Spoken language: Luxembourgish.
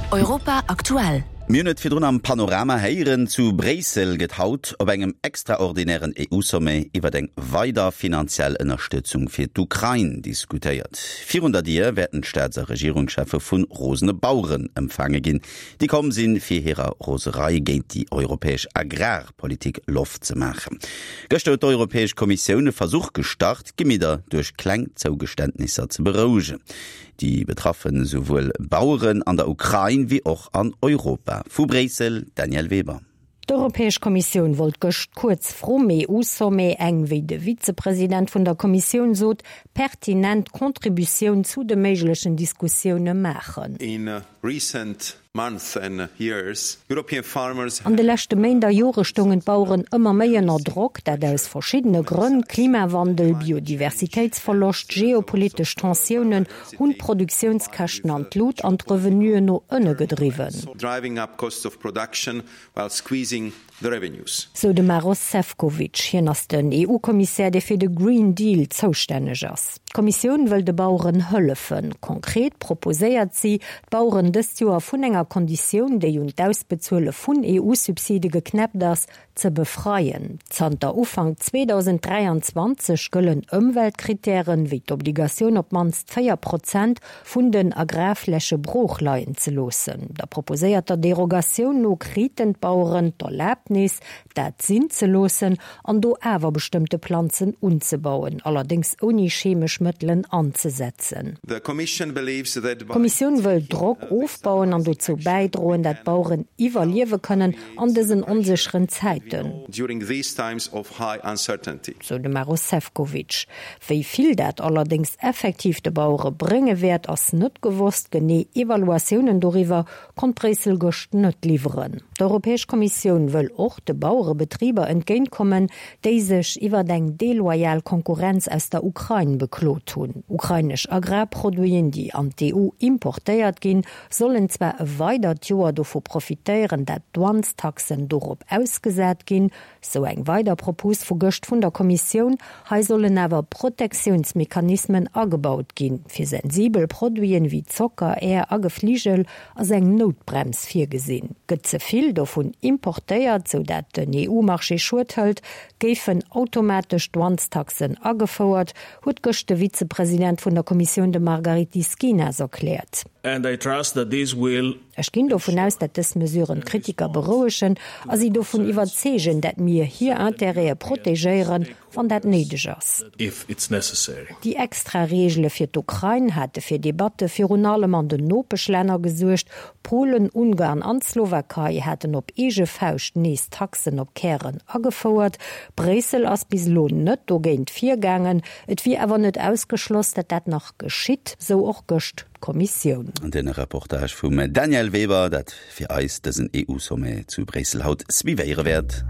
Europa aktuell. Mir hunn et virdrun am Panorama héieren, Zu Bréissel gëtt haut op engem extraordinären EU-Sommet iwwer eng weider finanziell Ënnerstëtzung fir d'Ukrain diskutéiert. Virun der Dier wäerten d'Staats a Regierungscheffe vu rosene Baueren empfaange ginn, déi komm sinn, fir hirer Roserei géint déi europäesch Agrarpolitik Loft ze maachen. Gëschter huet d'Europäesch Kommissioun e Versuch gestart, d'Gemidder duerch kleng Zougeständnisser ze berouegen. Déi betraffen esouwuel Baueren an der Ukrain wéi och an Europa. Vu Bréissel, Danièle Weber. D'Europäesch Kommissioun wollt gëscht kuerz vrum EU-Sommet eng, wéi de Vizepresident vun der Kommissioun sot, pertinent Contributioun zu de méiglechen Diskussioune maachen. An de leschte Méint a Jore stoungen d'Baueren ëmmer méi ënner Drock, dat aus verschiddene Grënn, Klimawandel, Biodiversitéitsverloscht, geopolitesch Tensiounen hunn d'Produktiounskäschten an d'Lut an d'Revenuen no ënne gedriwwen. the revenues. Sou de Maros Sefcovic. Hien ass den EU-Kommissär, dee fir de Green Deal zoustänneg ass. D'Kommissioun wëll de Baueren hëllefen. Konkret proposéiert si, d'Baueren dëst Joer vun enger Konditioun, déi un d'Ausbezuele vun EU-Subside geknäppt ass, ze befreien. Zanter Ufank 2023 gëllen Ëmweltkrittären, wéi d'Obligatioun op d'mannst 4 Prozent vun den Agrarfläche brooch leien ze loossen. Der proposéierter Derogatioun no kriten d'Baueren d'Erlaabnis, dat sinn ze loossen an do awer bestëmmte Planzen unzebauen, allerdéngs ouni chemesch Mëttelen anzesetzen. D'Kommissioun wëll Drock ofbauen an dozou bäidroen, dat d'Baueren iwwerliewe kënnen an dësen onsécheren Zäiten, sou de Maros Sefcovic. Wéi vill dat allerdéngs effektiv de Bauere brénge wäert, ass net gewosst. Genee Evaluatiounen doriwwer konnt Bréissel gëscht net liwweren. D'Europäesch Kommissioun wëll och de Bauerebetriber entgéint kommen, déi sech iwwert eng deloyal Konkurrenz aus der Ukrain beklot hunn. Ukrainesch Agrarproduiten, déi an d'EU importéiert ginn, sollen zwar e weidert Joer dovu profitéieren, dat d'Douanestaxen dorop ausgesat ginn, Sou eng weider Propos vu gëscht vun der Kommissioun. Hei sollen awer Protektiounsmechanismen agebaut ginn. Fir sensibel Produiten wéi Zocker, Är a Gefligel ass eng Noutbrems virgesinn. Gëtt ze vill dovun importéiert, sou dat den EU-Marché Schued hëlt, géifen automatesch Douanestaxen agefouert, huet gëscht de Vizepresident vun der Kommissioun, de Margaritis Schinas erkläert. And I trust that this will Ech ginn dovun aus, dat dës Mesuren d'Kritiker berouegen a si dovun iwwerzeegen, dat mir hir Intérêtë protegéieren, wann dat néideg ass. Déi extra Reegele fir d'Ukrain hate fir Debatte virun allem an den Nopeschlänner gesuergt. Polen, Ungarn an d'Slowakei haten op eege Fauscht nees Taxen op Kären agefouert. Bréissel ass bis elo net dogéint virgaangen. Et wier awer net ausgeschloss, dat dat nach geschitt, sou och gëscht Kommissioun. Den Reportage vum Danièle Weber, dat fir eis dësen EU-Sommet zu Bréissel haut suivéiere wäert.